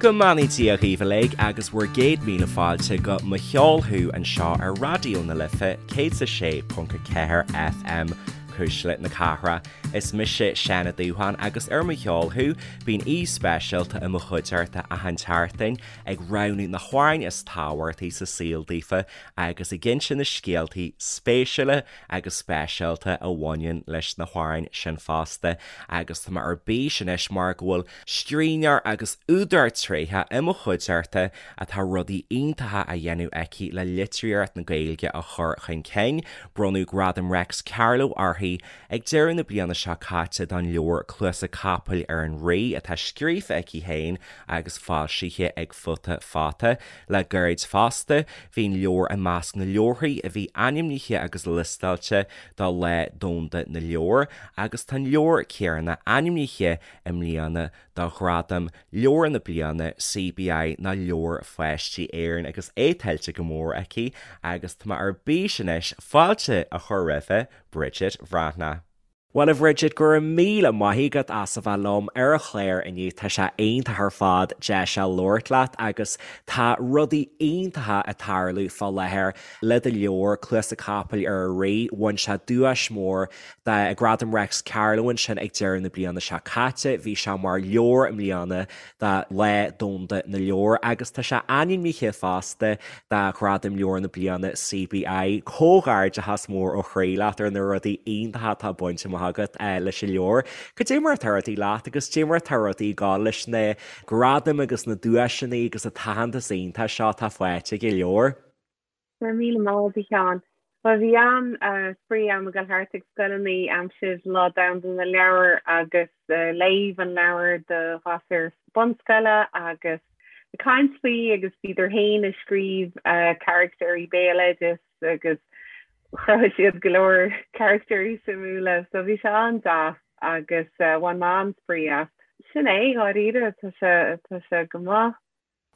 Go mbeannaí Dia dhaoibh uilig agus bhur gcéad míle fáilte go Mo Cheol Thú anseo ar Raidió na Life 106.4 FM, Cuisle na Cathrach. Is mise Seán Ó Dúsháin agus ar Mo Cheol Thú bíonn aoi speisialta i mo chuideachta achan tseachtain ag roghnú na hamhráin is tábhachtaí sa saol daofa agus ag inse na scéaltaí spéisiúla agus speisialta a bhaineann leis na hamhráin sin fosta agus tá mé ar bís anois mar go bhfuil scríbhneoir agus údar tréitheach i mo chuideachta atá rudaí iontacha á dhéanamh aici le litríocht na Gaeilge a chur chun cinn. Bronnadh Gradam Reics Carló uirthi ag deireadh na bliana seo caite don leabhar Cluasa Capaill ar an Rí atá scríofa aici féin agus foilsithe ag Futa Fata. Le gairid fosta, bhí an leabhar i measc na leabharthaí a bhí ainmnithe agus liostáilte do Lá Domhanda na Leabhar agus tá an leabhar céanna ainmnithe i mbliana do Ghradam Leabhar na Bliana CBI ná Leabhair Pháistí Éireann agus é tuillte go mór aici agus tá mé ar bís anois fáilte a chur roimhe, Bridget Bhreathnach. Bhuel a Bhridget, go raibh míle maith agat as a bheith liom ar an chlár inniu, tá sé iontach ar fad deis a labhairt leat agus tá rudaí iontacha ag tarlú fá láthair le do leabhar, Cluasa Capaill ar an Rí, bhain sé duais mhór do Ghradam Reics Carló ansin ag deireadh na bliana seo caite, bhí sé mar leabhar i mbliana do Lá Domhanda na Leabhar agus tá sé ainmnithe fosta do Ghradam Leabhar na Bliana CBI. Comhghairdeachas mór ó chroí leat ar na rudaí iontacha atá bainte amach agat leis an leabhar. Cad é mar atá rudaí leat agus cad é mar atá rudaí ag gabháil leis na gradaim agus na duaiseanna agus an t-aitheantas iontach seo atá faighte ag an leabhar? Go raibh míle maith agat a Sheáin. Bhuel bhí an-spraoi agam ag dul thart ag scoileanna aimsir Lá Domhanda na Leabhar agus léamh an leabhair do ghasúir bunscoile agus ag caint faoi agus bhíodar féin ag scríobh caractéirí béaloidis agus chruthaigh siad go leor caractéirí suimiúla so bhí sé an-deas agus bhain mé an-spraoi as. Sin é, dháiríre, tá sé tá sé go maith.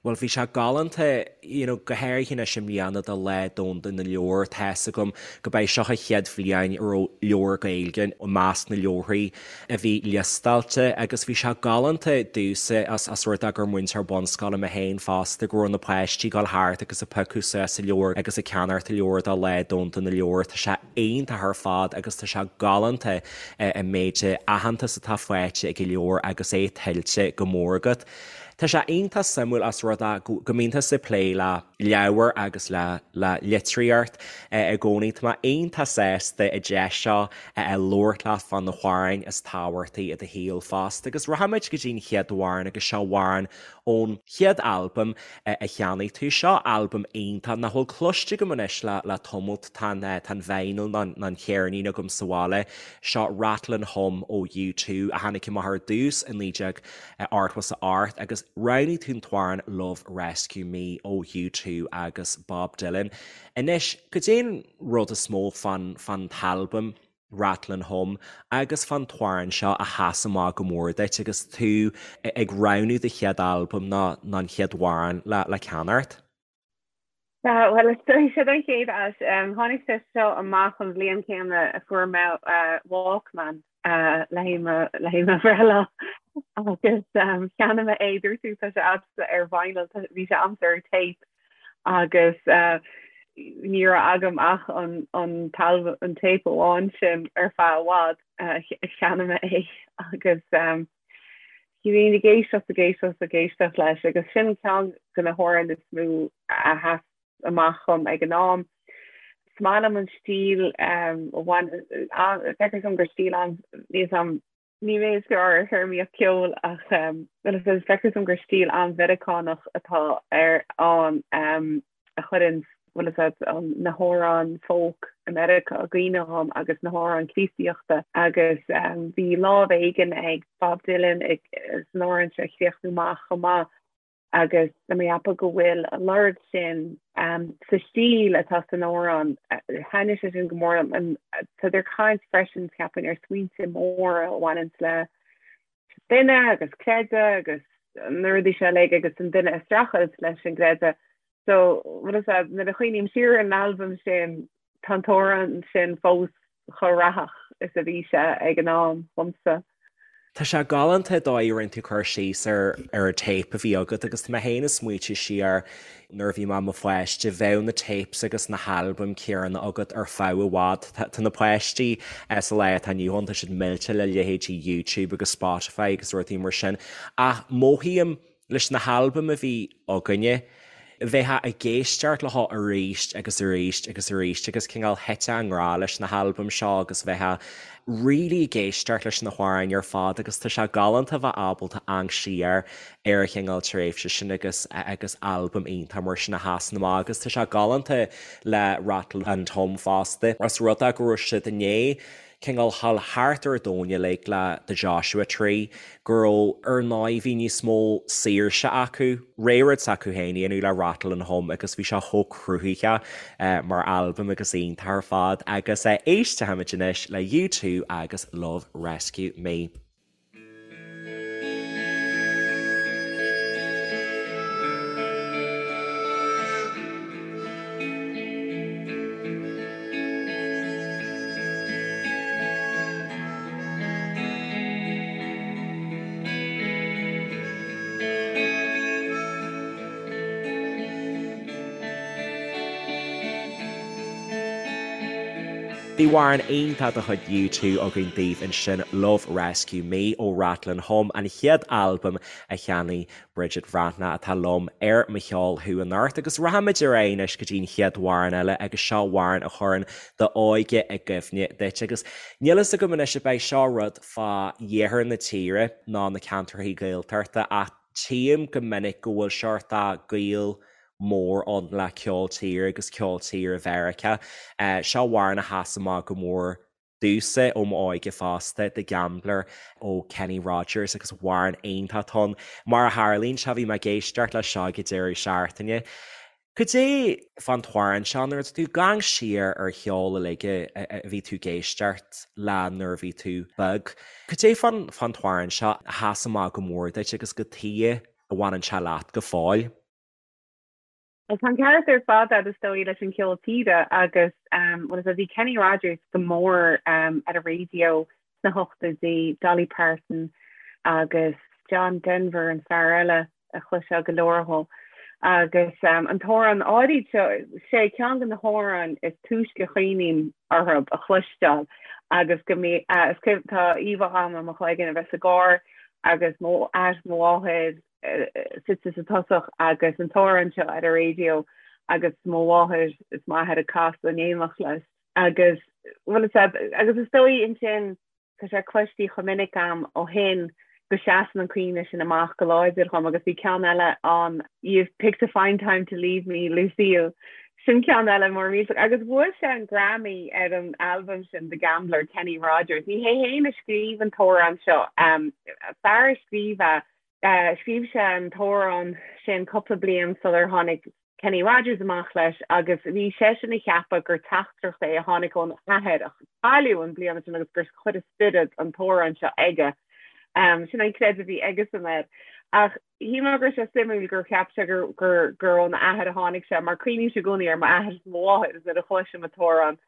Bhuel, bhí sé galánta, you know, go háirithe anois i mbliana do Lá Domhanda na Leabhar, tá's agam go b'é seo an chéad bhliain a raibh leabhar Gaeilge i measc na leabharthaí a bhí liostáilte agus bhí sé galánta domhsa as as rud é gur múinteoir bunscoile mé féin fosta go raibh na páistí ag dul thart agus ag piocadh suas an leabhar agus ag ceannacht an leabhar do Lá Domhanda na Leabhar. Tá sé iontach ar fad agus tá sé galánta an méid aitheantas atá faighte ag an leabhar agus é tuillte go mór agat. Tá sé iontach suimiúil as rud é go mbíonn tusa ag plé le leabhair agus le le litríocht i gcónaí. Tá mé iontach sásta an deis seo a labhairt leat fá na hamhráin is tábhachtaí i do shaol fosta. Agus rachaimid go dtí an chéad amhrán agus seo amhrán ón chéad albam a cheannaigh tú. Seo albam iontach nach bhfuil cloiste agam anois le le tamalt. Tá an tá an vinyl nó an cheirnín agam sa bhaile. Seo Rattle and Hum ó U2 a tháinig amach ar dtús i 19 88 agus roghnaigh tú an t-amhrán Love Rescue Me ó U2 agus Bob Dylan. Anois, cad é an rud is mó fán fán t-albam Rattle and Hum agus fán t-amhrán seo a sheas amach go mór duit agus tú ag roghnú do chéad albam nó an chéad amhrán le le ceannacht? Bhuel, is dóigh sé don chéad áit. Tháinig sé seo amach an bhliain chéanna a fuair mé Walkman le haghaidh mo bhreithlá agus cheannaigh mé é, dúirt tú tá sé agamsa ar vinyl, bhí sé agamsa ar tape agus ní raibh agam ach an an tape amháin sin ar feadh i bhfad, cheannaigh mé é agus Bhínn ag éisteacht, ag éisteacht, ag éisteacht leis agus sin ceann de na hamhráin is mó a sheas amach dhom ag an am. Is maith liom an stíl a bhain, feictear dom gur stíl an, níl 'fhios a'm, ní mé is fearr ar théarmaíocht ceoil ach feictear dom gur stíl an-Mheiriceánach atá ar ann. a chuireann, bhfuil fhios a'd, na hamhráin folk i Meiriceá i gcuimhne dhom agus na hamhráin Críostaíochta agus bhí lámh éigin ag Bob Dylan ag san amhrán seo a chríochnú amach chomh maith agus tá mé ag ceapadh go bhfuil an lorg sin sa stíl atá san amhrán. Thaitnigh sé sin go mór liom. Tá ag caint freisin ceapaim ar smaointe móra a bhaineann le duine agus creideamh agus na rudaí seo uilig agus an duine ag streachailt leis an gcreideamh. So bhfuil fhios a'd, nuair a chuimhním siar ar an albam sin, tá an t-amhrán sin fós chomh rathach is a bhí sé ag an am dhomsa. Tá sé galánta an dóigh a rinne tú cur síos ar ar an téip a bhí agat agus tá mé féin ag smaoitiú siar nuair a bhí mé i mo pháiste, bheadh na tapes agus na halbaim céanna agat ar feadh i bhfad. Tá na páistí sa lá atá inniu ann, tá siad millte le leithéidí YouTube agus Spotify agus rudaí mar sin ach mothaím leis na halbaim a bhí againne, bheifeá ag éisteacht leo arís agus arís agus arís agus cineál thitfeá i ngrá leis na halbaim seo agus bheifeá really ag éisteacht leis na hamhráin ar fad agus tá sé galánta a bheith ábalta amharc siar ar an chineál tréimhse sin agus agus albam iontach mar sin a sheasann amach agus tá sé galánta le Rattle and Hum fosta. Os rud é go raibh siad i ndiaidh cineál dhul thart ar an domhan uilig le The Joshua Tree, go raibh, ar ndóigh, bhí níos mó saoirse acu, rud s'acu féin a dhéanamh le Rattle and Hum agus bhí sé chomh cruthaitheach mar albam agus iontach ar fad agus éistfimid anois le U2 agus Love Rescue Me. Bhí amhrán iontach de chuid U2 againn daoibh ansin, Love Rescue Me ó Rattle and Hum, an chéad albam a cheannaigh Bridget Bhreathnach atá liom ar Mo Cheol Thú anocht agus rachaimid ar aghaidh anois go dtí an chéad amhrán eile agus seo amhrán a chuireann d'óige i gcuimhne duit agus níl fhios agam anois ab é seo rud fá iarthar na tíre ná na ceantracha Gaeltachta ach tchím go minic go bhfuil seort gaol mór ann le ceol tíre agus ceol tíre Mheiriceá. Seo amhrán a sheas amach go mór domhsa ó m'óige fosta, The Gambler ó Kenny Rogers agus amhrán iontach atá ann. Mar a tharlaíonn sé, bhí mé ag éisteacht leis seo ag an deireadh seachtaine. Cad é fán t-amhrán seo nuair atá tú ag amharc siar ar cheol uilig a bhí tú ag éisteacht le nuair a bhí tú beag, cad é fán fán t-amhrán seo a sheas amach go mór duit agus cad chuige a bhaineann sé leat go fóill? Tá an ceart ar fad agat is dóigh leis an ceol tíre agus bhuel is bhí Kenny Rogers go mór ar an raidió sna hochtóidí, Dolly Parton agus John Denver an fear eile a chloisfeá go leor dhó. Agus an t-amhrán áirid seo, sé ceann de na hamhráin is túisce a chuimhním orthu a chloisteáil agus go mbí, tá íomhá agam i mo chloigeann a bheith sa gcarr agus mo athair mo mháthair suite sa tosach agus an t-amhrán seo ar an raidió agus mo mháthair is m'athair ag casadh in éineacht leis agus bhuel is agus is dóigh ansin tá sé cloiste chomh minic agam ó shin go seasann an cuimhne sin amach go láidir dhom agus bhí ceann eile ann You've picked a fine time to leave me, Lucille. Sin ceann eile mór millteach agus bhuaigh sé an Grammy ar an albam sin The Gambler, Kenny Rogers. Ní hé féin a scríobh an t-amhrán seo, fear a scríobh é Scríobh sé an t-amhrán sin cúpla bliain sular tháinig Kenny Rogers amach leis agus bhí seisean ag ceapadh gur teachtaireacht é a tháinig óna athair a cailleadh an bliain sin agus gur chuir a spiorad an t-amhrán seo aige. Sin an creideamh a bhí aigesan air. Ach shíl mé go raibh sé suimiúil gur cheap sé gur gur gur óna athair a tháinig sé mar cuimhnímse i gcónaí ar m'athair is mo mháthair is nuair a chloisim an t-amhrán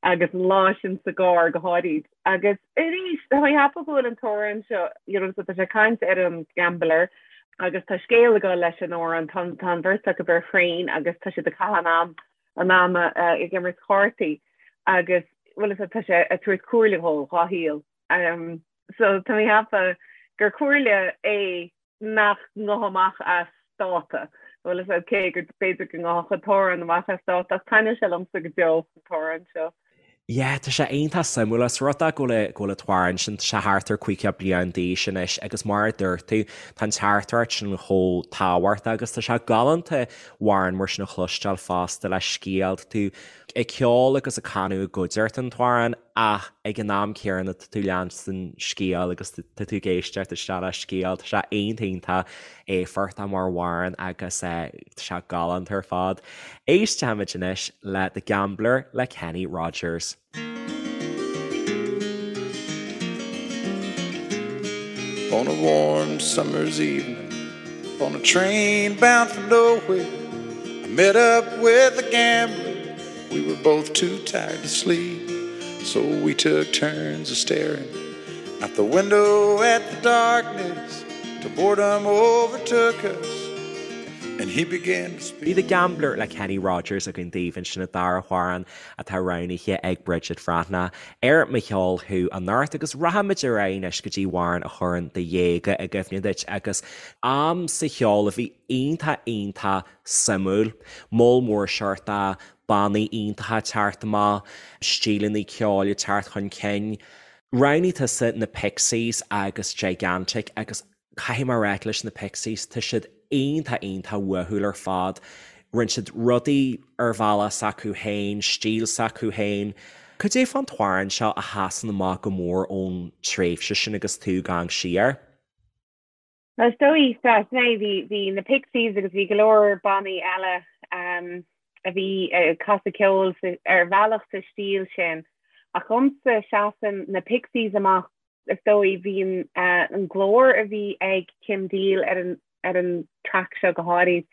agus an lá sin sa gcarr go háirid. Agus arís, tá mé ag ceapadh go bhfuil an t-amhrán seo, you know, so tá sé ag caint ar an gambler agus tá scéal ag dul leis an amhrán, tá tá an bheirt acu ar thraein agus tá siad ag caitheamh an am an ama ag imirt cártaí agus bhuel is tá sé ag tabhairt comhairle dhó dhá shaol. Um, so tá mé ag ceapadh gur comhairle é nach ngabhfadh amach as dáta. Bhuel is cé gur b'fhéidir go ngabhfadh an t-amhrán amach as dáta ach taitneoidh sé liomsa go deo an t-amhrán seo. Yeah, tá sé iontach suimiúil ós rud é go bhfuil go bhfuil an t-amhrán sin, tá sé thart ar 50 bliain d'aois anois agus mar a dúirt tú, tá an teachtaireacht sin chomh tábhachtach agus tá sé galánta amhrán mar sin a chloisteáil fosta le scéal, tá tú ag ceol agus ag canadh i gcuideachta an t-amhrán ach ag an am céanna tá tú leanstan scéal agus tá tú ag éisteacht isteach le scéal, tá sé iontach iontach éifeachtach mar amhrán agus tá sé galánta ar fad. Éistfimid anois le The Gambler le Kenny Rogers. On a warm summer's evening On a train bound for nowhere I met up with a gambler We were both too tired to sleep, so we took turns a staring. Out the window at the darkness till boredom overtook us and he began to speak. Bhí The Gambler le Kenny Rogers againn daoibh ansin an dara hamhrán atá roghnaithe ag Bridget Bhreathnach ar Mo Cheol Thú anocht agus rachaimid ar aghaidh anois go dtí amhrán a chuireann do dhéaga i gcuimhne duit agus am sa cheol a bhí iontach iontach suimiúil. Moll mór seort de bannaí iontacha ag teacht amach, stíleanna ceoil ag teacht chun cinn. Roghnaigh tusa na Pixies agus Gigantic agus caithfidh mé a rá leis na Pixies, tá siad iontach iontach uathúil ar fad. Rinne siad rudaí ar bhealach s'acu féin, stíl s'acu féin. Cad é fán t-amhrán seo a sheasann amach go mór ón tréimhse sin agus tú ag amharc siar? Is dóigh, sea, sin é, bhí, bhí na Pixies agus bhí go leor bannaí eile a bhí ag casadh ceoil ar bhealach sa stíl sin. Ach dhomsa, seasann na Pixies amach, is dóigh, bhí an, an glór a bhí ag Kim Deal ar an, ar an traic seo go háirid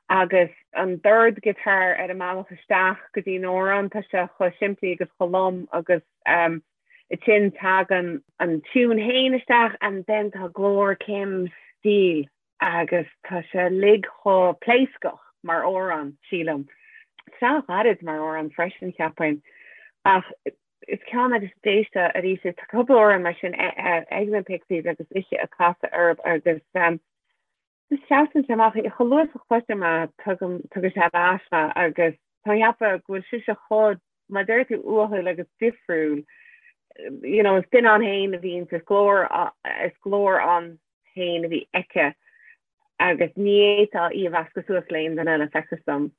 agus an dord guitar ar an mbealach isteach go dtí an amhrán, tá sé chomh simplí agus chomh lom agus Ansin tagann an tiún fhéin isteach and then tá glór Kim Deal agus tá sé uilig chomh pléascach mar amhrán, sílim. Tá sé an-ghairid mar amhrán freisin, cheapfainn. Ach is ceann agus d'éisteá arís, tá cúpla amhrán mar sin ag na Pixies agus mise ag casadh orthu agus Seasann sé amach, chomh luath is a chloisim é, tugann sé ar ais mé agus tá mé ag ceapadh go bhfuil sise chomh, mar a deir tú, uathúil agus difriúil. You know, is duine ann féin a bhí inti, is glór, is glór ann féin a bhí aici agus ní fhéadfá í a mheascadh suas le aon duine eile, feictear dom.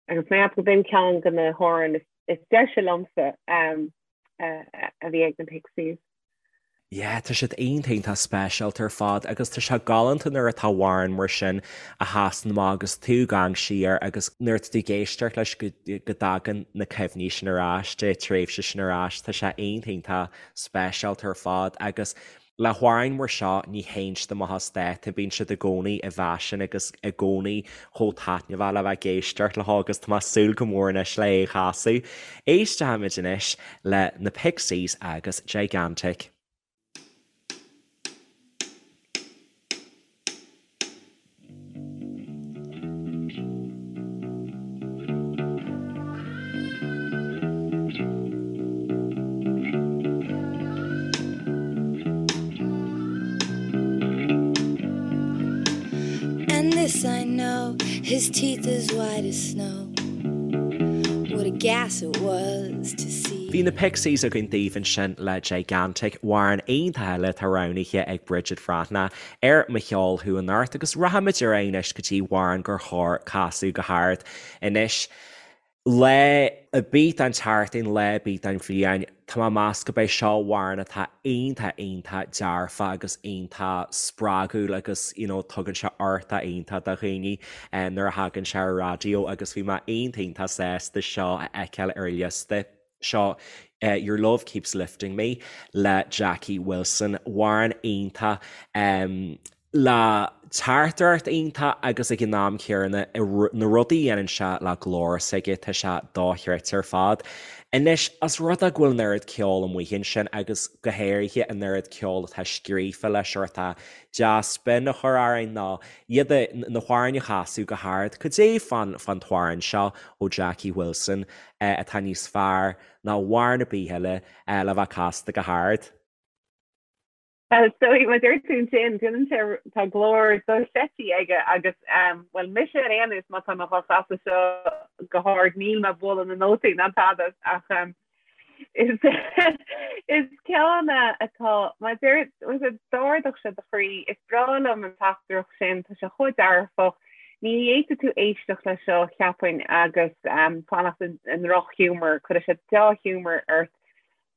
Agus mé ag ceapadh gurb in ceann de na hamhráin is deise liomsa a bhí ag na Pixies. Yeah, tá siad iontach iontach speisialta ar fad agus tá sé galánta nuair atá amhrán mar sin a sheasann amach agus tú ag amharc siar agus nuair atá tú ag éisteacht leis go dtagann na cuimhní sin ar ais, an tréimhse sin ar ais, tá sé iontach iontach speisialta ar fad agus Le hamhráin mar seo ní théann siad amach as dáta, bíonn siad i gcónaí i bhfaisean agus i gcónaí chomh taitneamhach le bheith ag éisteacht leo agus tá mé ag súil go mór anois le é a chasadh. Éistfimid anois le na Pixies agus Gigantic. And this I know, his teeth as white as snow. What a gas it was to see. Bhí na Pixies againn daoibh ansin le Gigantic, amhrán iontach eile atá roghnaithe ag Bridget Bhreathnach ar Mo Cheol Thú anocht agus rachaimid ar aghaidh anois go dtí amhrán gur chóir casadh go hard anois. Lá ar bith den tseachtain, lá ar bith den bhliain, tá mé ag meas gurb é seo amhrán atá iontach iontach dearfach agus iontach spreagúil agus you know tugann sé uchtach iontach do dhaoine nuair a thagann sé ar raidió agus bhí mé iontach iontach sásta seo a fheiceáil ar an liosta. Seo Your Love Keeps Lifting Me le Jackie Wilson, amhrán iontach le teachtaireacht iontach agus ag an am céanna na rudaí a dhéanann sé le glór s'aige, tá sé dochreidte ar fad. Anois, os rud é go bhfuil an oiread ceoil amuigh ansin agus go háirithe an oiread ceoil atá scríofa le seort dea-spion a chur orainn nó iad na hamhráin a chasadh go hard, cad é fán t-amhrán seo ó Jackie Wilson atá níos fearr ná amhrán ar bith eile le bheith casta go hard. Bhuel, is dóigh, mar a deir tú ansin, déanann sé, tá glór dochreidte aige agus, bhuel, mise ar aon nós, má tá mé dhá chasadh seo go hard, níl mé ag bualadh na nótaí ná tada ach is is ceann atá, mar a deir, d'ardódh sé do chroí, is breá liom an teachtaireacht sin, tá sé chomh dearfach, Ní fhéadfadh tú éisteacht leis seo, cheapfainn, agus fanacht i ndrochghiúmar, cuirfidh sé dea-ghiúmar ort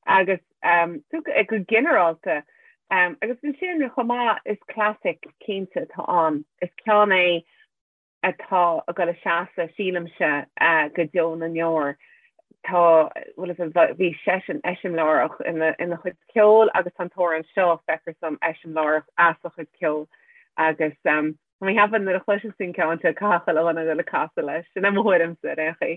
agus go ginearálta. Agus ansin chomh maith, is classic cinnte atá ann. Is ceann é atá ag dul a seasamh, sílimse, go deo na ndeor. Tá, bhuel, bhí seisean eiseamláireach ina chuid ceoil agus tá an t-amhrán seo, feictear dom, eiseamláireach as a chuid ceoil agus Tá mé ag ceapadh nuair a chloisfeas tú an ceann seo caithfidh chuile dhuine dul ag casadh leis. Sin é mo thuairimse ar aon chaoi.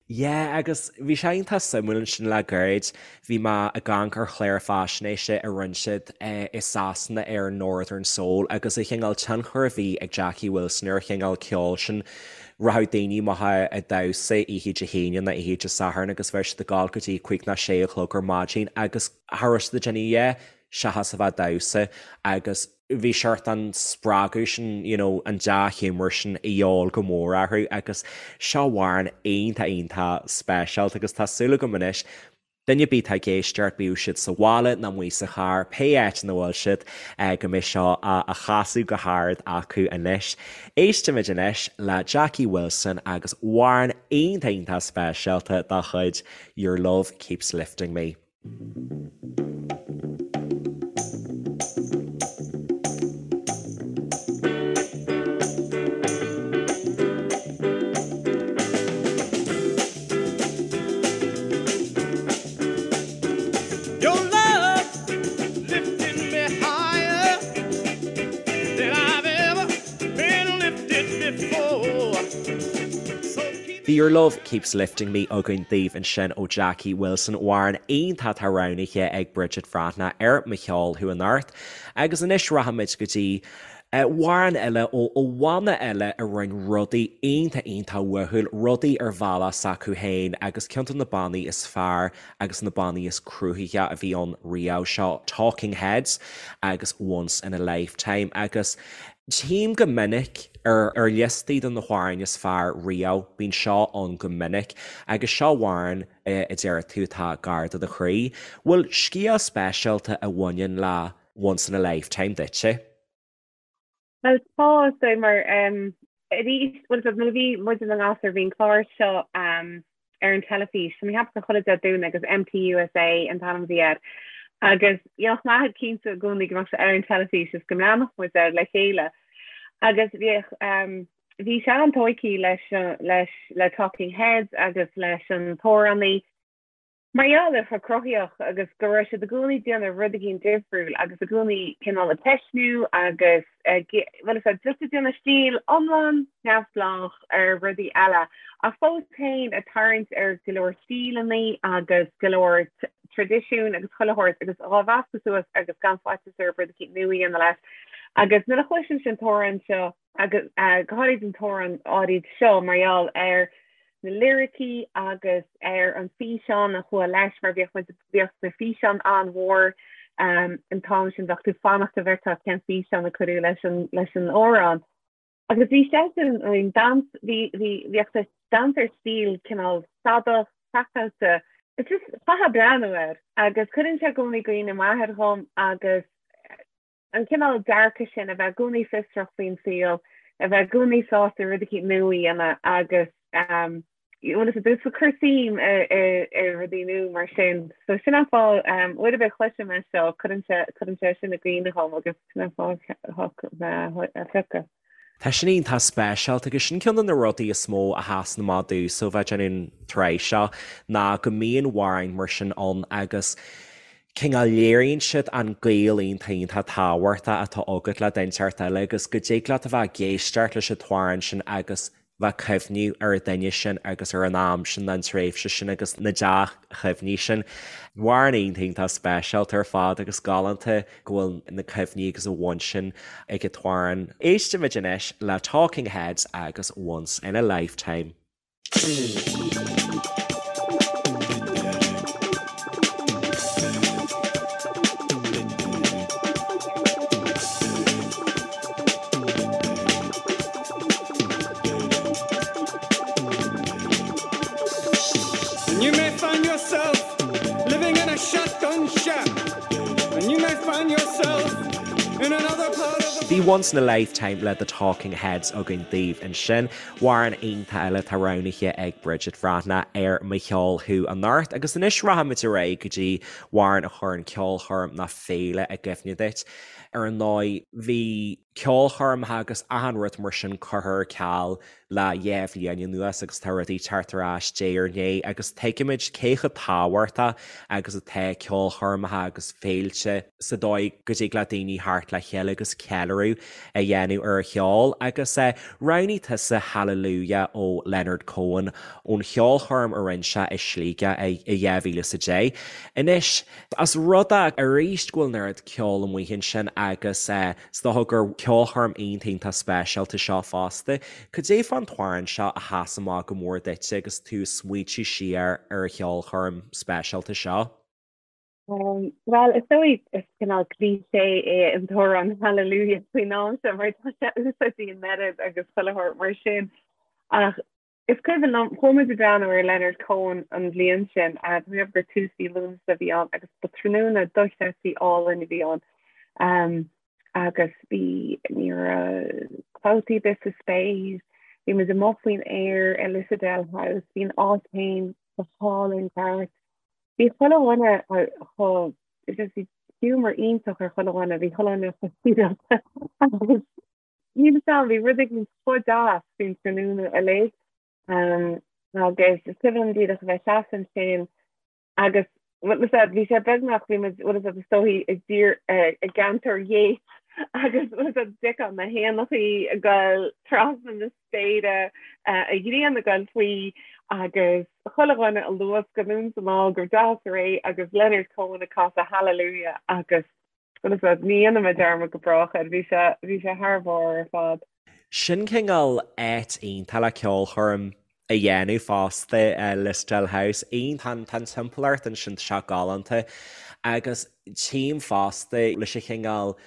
Yeah, agus bhí sé iontach suimiúil ansin le gairid, bhí mé ag amharc ar chlár faisnéise a rinne siad i Sasana ar Northern Soul agus an chineál tionchar a bhí ag Jackie Wilson ar an chineál ceoil sin. Rachadh daoine amach ag damhsa oíche Dé hAoine nó oíche Dé Sathairn agus bheadh siad ag gabháil go dtí cúig nó sé a chlog ar maidin agus cha raibh siad ag déanamh a dhath seachas a bheith ag damhsa agus bhí seort an spreagadh sin, you know, an dea-ghiúmar sin a dhíobháil go mór orthu agus seo amhrán iontach iontach speisialta agus tá súil agam anois, duine ar bith atá ag éisteacht, bíodh siad sa bhaile nó amuigh sa charr, pé áit ina bhfuil siad, go mbeidh seo á chasadh go hard acu anois. Éistimid anois le Jackie Wilson agus amhrán iontach iontach speisialta dá chuid, Your Love Keeps Lifting Me. Your love lifting me higher than I've ever been lifted before. So keep Bhí Your Love Keeps Lifting Me againn daoibh ansin ó Jackie Wilson, amhrán iontach atá roghnaithe ag Bridget Bhreathnach ar Mo Cheol Thú Anocht. Agus anois rachaimid go dtí amhrán eile ó bhanna eile a rinne rudaí iontach iontach uathúil, rudaí ar bhealach s'acu féin agus ceann de na bannaí is fearr agus na bannaí is cruthaithí a bhí ann riamh, seo Talking Heads agus Once in a Lifetime agus tchím go minic ar ar liostaí de na hamhráin is fearr riamh, bíonn seo ann go minic agus seo amhrán a deir tú atá gar do do chroí. Bhfuil scéal speisialta a bhaineann le Once in a Lifetime duitse? Bhuel tá, is dóigh, mar arís, bhuel nuair a bhí muid ina ngasúir bhí an clár seo ar an teilifís, tá mé ag ceapadh gur chuile Dé Domhnaigh agus MTUSA an t-ainm a bhí air. Agus dhéanfadh m'athair cinnte i gcónaí go mbeadh sé ar an teilifís is go mbreathnódh muid air le chéile. Agus bhíodh, bhí sé an-tógtha leis, leis, le Talking Heads agus leis an t-amhránaí. Mar gheall ar chomh cruthaíoch agus go raibh siad i gcónaí ag déanamh rud éigin difriúil agus i gcónaí cineál ag ceistniú agus ag, bhuel is ea, just ag déanamh stíl iomlán neamhspleách ar rudaí eile ach fós féin ag tarraingt ar go leor stíleanna agus go leor traidisiún agus chuile shórt agus dhá mheascadh suas agus gan faitíos orthu rud éicint nua a dhéanamh leis. Agus nuair a chloisimse an t-amhrán seo, agus go háirid an t-amhrán áirid seo mar gheall ar na liricí agus ar an físeán a chuaigh leis mar bhíodh muid bhíodh na físeáin an-mhór um, an t-am sin bheadh tú ag fanacht go bhfeicfeá cén físeán a cuireadh leis an leis an amhrán. Agus bhí seisean I mean, dans bhí bhí bhíodh sé dans ar stíl cineál stadach craiceáilte. It's just chaithfeá breathnú air agus cuireann sé i gcónaí i gcuimhne m'athair dhom agus an cineál dearcadh sin, a bheith i gcónaí fiosrach faoin saol, a bheith i gcónaí sásta rud eicínt nua a dhéanamh agus bhuel is ag cur suim i rudaí nua mar sin. So sin an fáth, uair ar bith a chloisim é seo, cuireann sé, cuireann sé sin i gcuimhne dhom agus sin an fáth a phiocadh. Tá sin iontach speisialta agus sin ceann de na rudaí is mó a sheasann amach domhsa ó bheith ag déanamh an tsraith seo ná go mbíonn amhráin mar sin ann agus cineál léiríonn siad an gaol iontach iontach tábhachtach atá agat le duine inteacht eile agus go dtig leat a bheith ag éisteacht leis an t-amhrán sin agus bheith ag cuimhniú ar an duine sin agus ar an am sin, an tréimhse sin agus na dea-chuimhní sin. Amhrán iontach iontach speisialta ar fad agus galánta go bhfuil na cuimhní agus an bhaint sin ag an t-amhrán. Éistimid anois le Talking Heads agus Once in a Lifetime. And you may find yourself living in a shotgun shack. And you may find yourself in another part of the Bhí Once in a Lifetime le The Talking Heads againn daoibh ansin. Amhrán iontach eile atá roghnaithe ag Bridget Bhreathnach ar Mo Cheol Thú anocht agus anois rachaimid ar aghaidh go dtí amhrán a chuireann ceolchoirm nó féile i gcuimhne duit. Ar ndóigh, bhí. ceolchoirmeacha agus achan rud mar sin curtha ar ceal le dhá bhliain anuas agus tá rudaí teacht ar ais diaidh ar ndiaidh agus tuigimid cé chomh tábhachtach agus atá ceolchoirmeacha agus féilte sa dóigh go dtig le daoine theacht le chéile agus ceiliúradh a dhéanamh ar an cheol agus roghnaigh tusa Hallelujah ó Leonard Cohen ón cheolchoirm a rinne sé i Sligeach i 2010. Anois, As rud é arís go bhfuil an oiread ceoil amuigh ansin agus is dócha gur ceolchoirm iontach iontach speisialta seo fosta. Cad é fán t-amhrán seo a sheas amach go mór duitse agus tú ag smaoitiú siar ar an cheolchoirm speisialta seo? Bhuel, is dóigh is cineál cliché é an t-amhrán Hallelujah faoin am seo mar tá sé úsáidte an oiread agus chuile shórt mar sin. Ach Is cuimhin liom, chuaigh muid ag breathnú ar Leonard Cohen an bhliain sin, tá mé ag ceapadh gur tús mhí Lúnasa a bhí ann agus ba tráthnóna dochreidte álainn a bhí ann. Agus bhí, ní raibh clabhtaí ar bith sa spéir, bhí muid amuigh faoin aer i Lissadell House, bhí an áit féin go hálainn ceart. Bhí chuile dhuine chomh, just bhí giúmar iontach ar chuile dhuine, bhí chuile dhuine chomh sibhialta agus Níl a fhios agam, bhí rud éigin chomh deas faoin tráthnóna uilig. Agus is cuimhin liom díreach a bheith seasamh ansin agus bhfuil a fhios agat, bhí sé beagnach, bhí muid, bhfuil a fhios agat, is dóichí i dtír, i gceantar Yeats agus bhfuil a fhios agat, d'fheicfeá na héanachaí ag goil trasna na spéire, an ghrian ag goil faoi agus chuile dhuine ag luascadh anonn is anall go deas réidh agus Leonard Cohen ag casadh Hallelujah agus Bhuel, ní dhéanfaidh mé dearmad go brách air, bhí sé, bhí sé thar barr ar fad. Sin cineál áit iontach le ceolchoirm a dhéanamh fosta, Lissadell House. Iontach, tá an timpeallacht ansin, tá sé galánta. Agus tchím fosta leis an chineál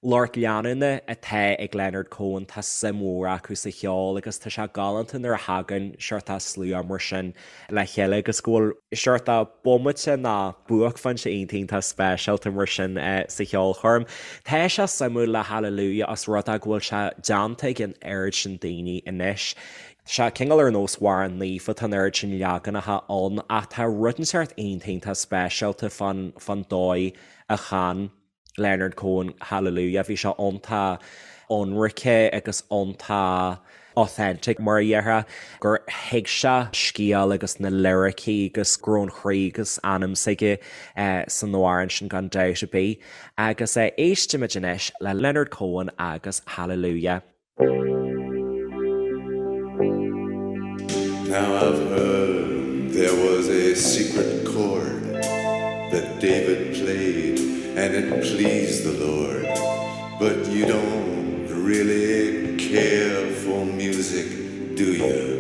lucht leanúna atá ag Leonard Cohen, tá suim mhór acu sa cheol agus tá sé galánta nuair a thagann seort slua mar sin le chéile agus go bhfuil seort bomaite nó buaicphointe iontach iontach speisialta mar sin sa cheolchoirm. Tá sé suimiúil le Hallelujah os rud é go bhfuil sé déanta ag an oiread sin daoine anois. Tá sé cineál ar nós amhrán naofa, tá an oiread sin leaganacha ann ach tá rud inteacht iontach iontach speisialta fán fán dóigh a chan Leonard Cohen, Hallelujah, bhí sé iontach ionraice agus iontach authentic mar a déarfá, gur thuig sé scéal agus na liricí agus go raibh an chroí agus anam s'aige san amhrán sin gan dabht ar bith. Agus éistimid anois le Leonard Cohen agus Hallelujah. Now I've heard there was a secret chord that David played and it pleased the Lord but you don't really care for music do you?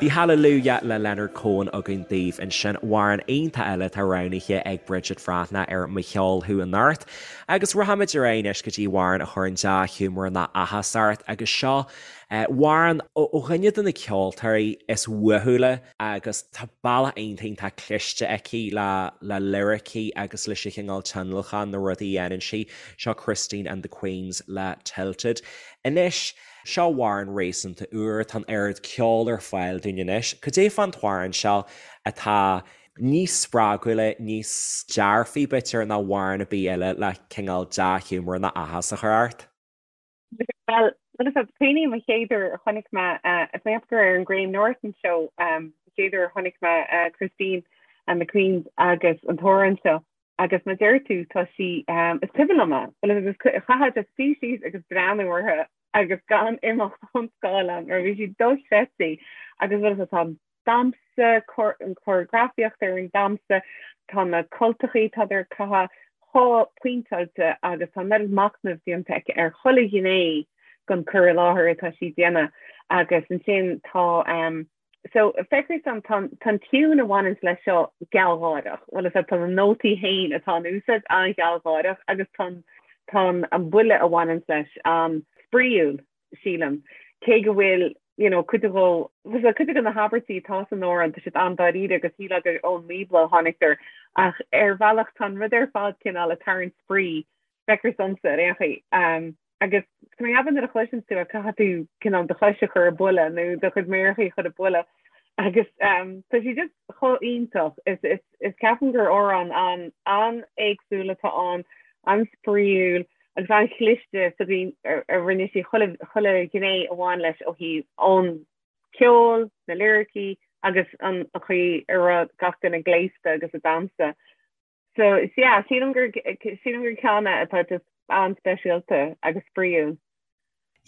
Bhí Hallelujah le Leonard Cohen againn daoibh ansin, amhrán iontach eile atá roghnaithe ag Bridget Bhreathnach ar Mo Cheol Thú anocht. Agus rachaimid ar aghaidh anois go dtí amhrán a chuireann dea-ghiúmar ná áthas ort agus seo amhrán ó dhuine de na ceoltóirí is uathúla agus tá bealach iontach iontach cliste aici le le liricí agus leis an chineál tionlacan na rudaí a dhéanann sí. Seo Christine and the Queens le Tilted. Anois. Seo amhrán réasúnta úr, tá an oiread ceoil ar fáil dúinn anois. Cad é fán t-amhrán seo atá níos spreagúla, níos dearfaí b'fhéidir ná amhrán ar bith eile le cineál dea-ghiúmar ná áthas a chur ort? Bhuel, rud is cuimhním an chéad uair a chonaic mé, is mé ag ceapadh gur ar an Graham Norton Show an chéad uair a chonaic mé Christine and the Queens agus an t-amhrán seo. Agus mar a deir tú, tá sí, is cuimhin liom é, bhuel agus chaithfeá just suí síos agus breathnú orthu agus gan imeacht ón scáileán mar bhí sí dochreidte agus bhuel tá an damhsa, an choreografaíocht ar an damhsa, tá na cultachaí atá ag caitheamh chomh pointeáilte agus tá an oiread machnaimh déanta aici ar chuile ghné den cur i láthair atá sí ag déanamh agus ansin tá So, feictear dom, tá an tiún a bhaineanns leis seo gealgháireach. Bhuel, is ea, tá na nótaí féin atá in úsáid an-ghealgháireach agus tá tá an buille a bhaineanns leis an-spraíúil, sílim. Cé go bhfuil, you know, cuid de dhó, bhuel, cuid de na habairtí atá san amhrán, tá siad an-dáiríre agus shílfeá gur ón mBíobla a tháinig ach ar bhealach tá an rud ar fad cineál ag tarraingt spraoi, feictear domsa ar aon chaoi. Agus tá mé ag ceapadh nuair a chloiseann tú é caithfidh tú cineál do chois a chur ag buille nó do chuid méarachaí a chur ag buille. Agus tá sí just chomh iontach. Is is is ceapaim gur amhrán an an-éagsúil atá ann, an-spraíúil agus an-chliste sa gcaoi a rinne sí chuile chuile ghné a bhain leis ó thaobh an ceol, na liricí agus an chaoi a raibh gach duine gléasta agus ag damhsa. So yeah, sílim gur sílim gur ceann é atá just an-speisialta agus spraíúil.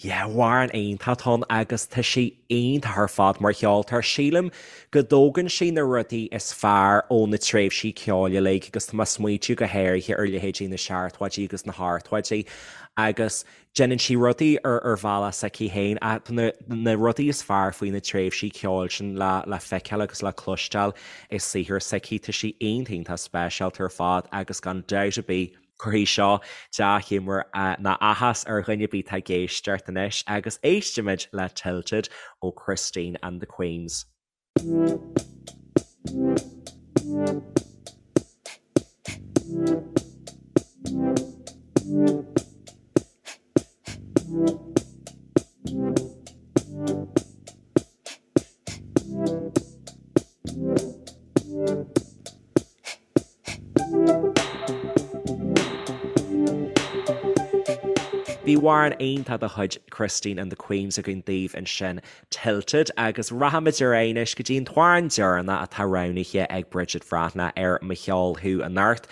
Yeah, amhrán iontach atá ann agus tá sí iontach ar fad mar cheoltóir. Sílim go dtógann sí na rudaí is fearr ó na tréimhsí ceoil uilig agus tá mé ag smaoitiú go háirithe ar leithéidí na seachtóidí agus na hochtóidí agus déanann sí rudaí ar ar bhealach s'aici féin ach tá na na rudaí is fearr faoi na tréimhsí ceoil sin le le feiceáil agus le cloisteáil i saothar s'aici. Tá sí iontach iontach speisialta ar fad agus gan dabht ar bith Cuirfidh seo dea-ghiúmar ná áthas ar dhuine ar bith atá ag éisteacht anois agus éistimid le Tilted ó Christine and the Queens. Bhí amhrán iontach de chuid Christine and the Queens againn daoibh ansin, Tilted, agus rachaimid ar aghaidh anois go dtí an t-amhrán deireanach atá roghnaithe ag Bridget Bhreathnach ar Mo Cheol Thú anocht.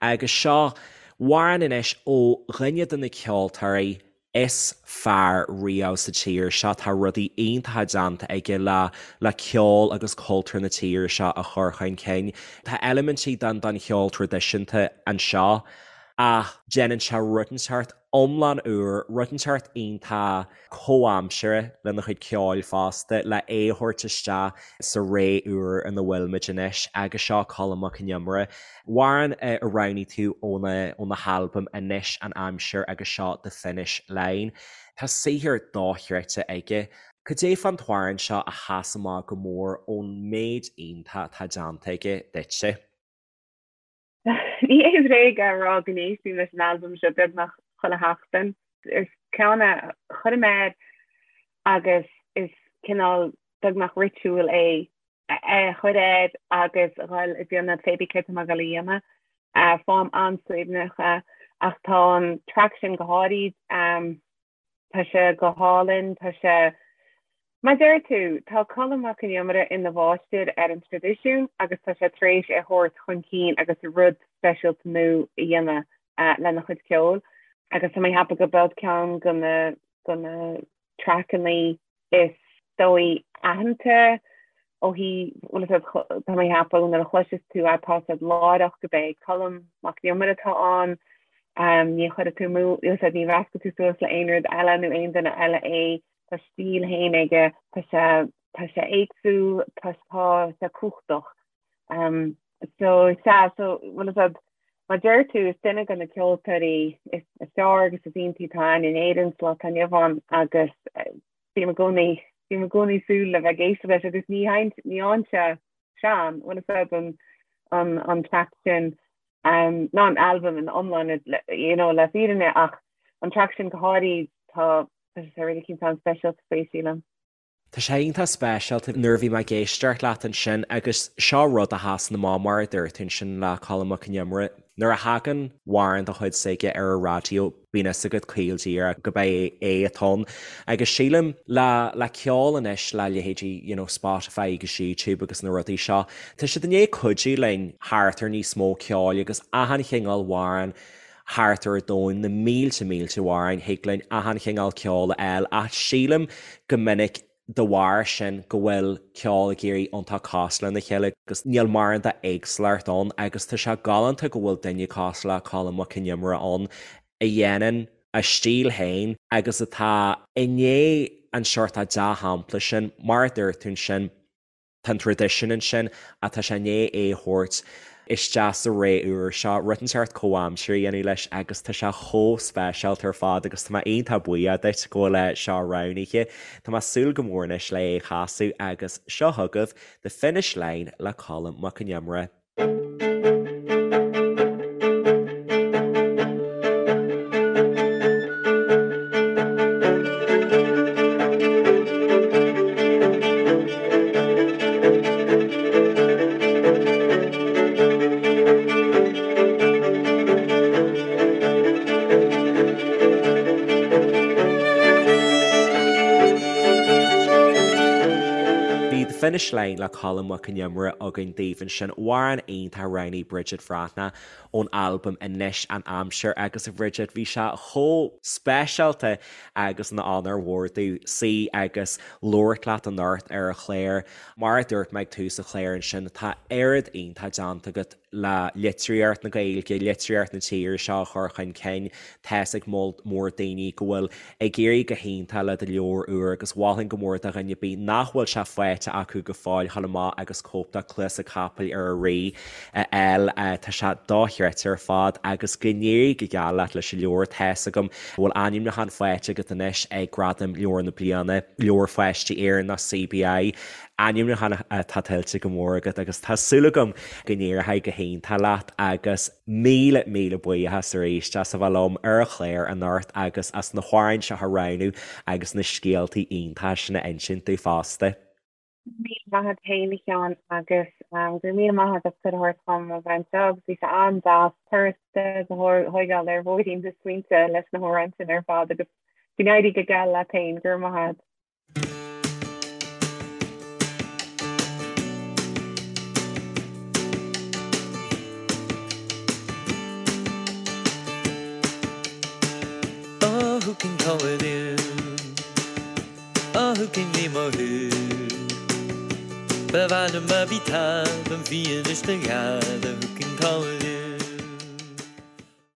Agus seo amhrán anois ó dhuine de na ceoltóirí is fearr riamh sa tír seo. Tá rudaí iontacha déanta aige le le ceol agus cultúr na tíre seo a chur chun cinn. Tá eilimintí den den cheol traidisiúnta anseo ach déanann sé rud inteacht iomlán úr, rud inteacht iontach comhaimseartha lena chuid ceoil fosta le é a thabhairt isteach sa ré úr ina bhfuilimid anois agus seo Colm Mac Con Iomaire. Amhrán a roghnaigh tú óna halbam Anois an Aimsir agus seo The Finish Line. Tá saothar dochreidte aige. Cad é fán t-amhrán seo a sheas amach go mór ón méid iontach atá déanta aige duitse? Ní hé bréag a rá go n-éistím leis an albam seo beagnach chuile sheachtain. Is ceann é a chuirim air agus is cineál beagnach ritual é é a chur air agus a dhul ag déanamh pé bí céard tá mé ag dul a dhéanamh. Faighim an-suaimhneach é ach tá an traic sin go háirid, tá sé go hálainn, tá sé, mar a deir tú, tá Colm Mac Con Iomaire ina mháistir ar an traidisiún agus tá sé tar éis é a thabhairt chun cinn agus rud speisialta nua a dhéanamh lena chuid ceoil agus tá mé ag ceapadh gurb é ceann de na de na traiceanna is dóigh aitheanta ó thaobh, bhuel is tá mé ag ceapadh nuair a chloiseas tú é tá a fhios agat láithreach gurb é Colm Mac Con Iomaire atá ann, ní chuirfidh tú amú, ní mheascfaidh tú suas le aon rud eile nó aon duine eile é, tá a stíl féin aige, tá sé tá sé éagsúil, tá tá sé cumhachtach. So sea, so bhuel is mar a deir tú, is duine de na ceoltóirí is fearr agus is iontaí atá ann in Éirinn sa lá atá inniu ann agus bím i gcónaí, bím i gcónaí ag súil le bheith ag éisteacht leis agus ní ní fhaigheann sé sean, bhuel is an an an traic sin ná an albam ina iomláine you know le fírinne ach an traic sin go háirid tá tá sé really cinnte an-speisialta faoi sílim. Tá sé iontach speisialta nuair a bhí mé ag éisteacht leat ansin agus seo rud a sheasann amach mar a dúirt tú ansin le Colm Mac Con Iomaire, nuair a thagann amhrán de chuid s'aige ar an raidió bíonn fhios agat caol díreach gurb é é atá ann. Agus sílim le le ceol anois le leithéidí you know Spotify agus YouTube agus na rudaí seo, tá siad i ndiaidh cuidiú linn thart ar níos mó ceoil agus achan chineál amhrán thart ar an domhan, na mílte mílte amhráin, thig linn achan chineál ceoil a fháil ach sílim go minic de bharr sin go bhfuil ceol ag éirí iontach cosúil lena chéile agus níl mórán d'éagsúlacht ann agus tá sé galánta go bhfuil duine cosúil le Colm Mac Con Iomaire ann a dhéanann a stíl féin agus atá i ndiaidh an seort dea-shampla sin, mar a dúirt tú ansin. Tá an traidisiún ansin ach tá sé i ndiaidh é a thabhairt isteach sa ré úr seo, rud inteacht comhaimseartha a dhéanamh leis agus tá sé chomh speisialta ar fad agus tá mé iontach buíoch duit go bhfuil é seo roghnaithe. Tá mé ag súil go mór anois le é a chasadh agus seo chugaibh The Finish Line le Colm Mac Con Iomaire. Bhí The Finish Line le Colm Mac Con Iomaire againn daoibh ansin, amhrán iontach a roghnaigh Bridget Bhreathnach ón albam Anois an Aimsir agus a Bhridget bhí sé chomh speisialta agus ina onóir mhór domh suí agus labhairt leat anocht ar an chlár. Mar a dúirt mé ag tús an chláir ansin tá oiread iontach déanta agat le litríocht na Gaeilge, litríocht na tíre seo a chur chun cinn. Tá's ag moll mór daoine go bhfuil ag éirí go hiontach le do leabhar úr agus mholfainn go mór do dhuine ar bith nach bhfuil sé faighte acu go fóill dhul amach agus cóip de Cluasa Capaill ar an Rí a fháil. Tá sé dochreidte ar fad agus go n-éirí go geal leat leis an leabhar. Tá's agam go bhfuil ainmniúchán faighte agat anois ag Gradaim Leabhar na Bliana, Leabhar Pháistí Éireann, CBI. Ainmniúchán atá tuillte go mór agat agus tá súil agam go n-éireoidh go hiontach leat agus míle míle buíochas arís as a bheith liom ar an chlár anocht agus as na hamhráin seo a roghnú agus na scéaltaí iontacha sin a insint domh fosta. Míle maith agat féin a Sheáin agus go raibh míle maith agat as cuireadh a thabhairt dom a bheith anseo agus bhí sé an-deas turas a thógáil ar bhóithrín na smaointe leis na hamhráin sin ar fad agus go n-éirí go geal leat féin, go raibh maith agat. Oh, who can call it in? Oh, who can name a who? Ba mhaith liom a bhí talamh bhí anois do gheala, who can call it in?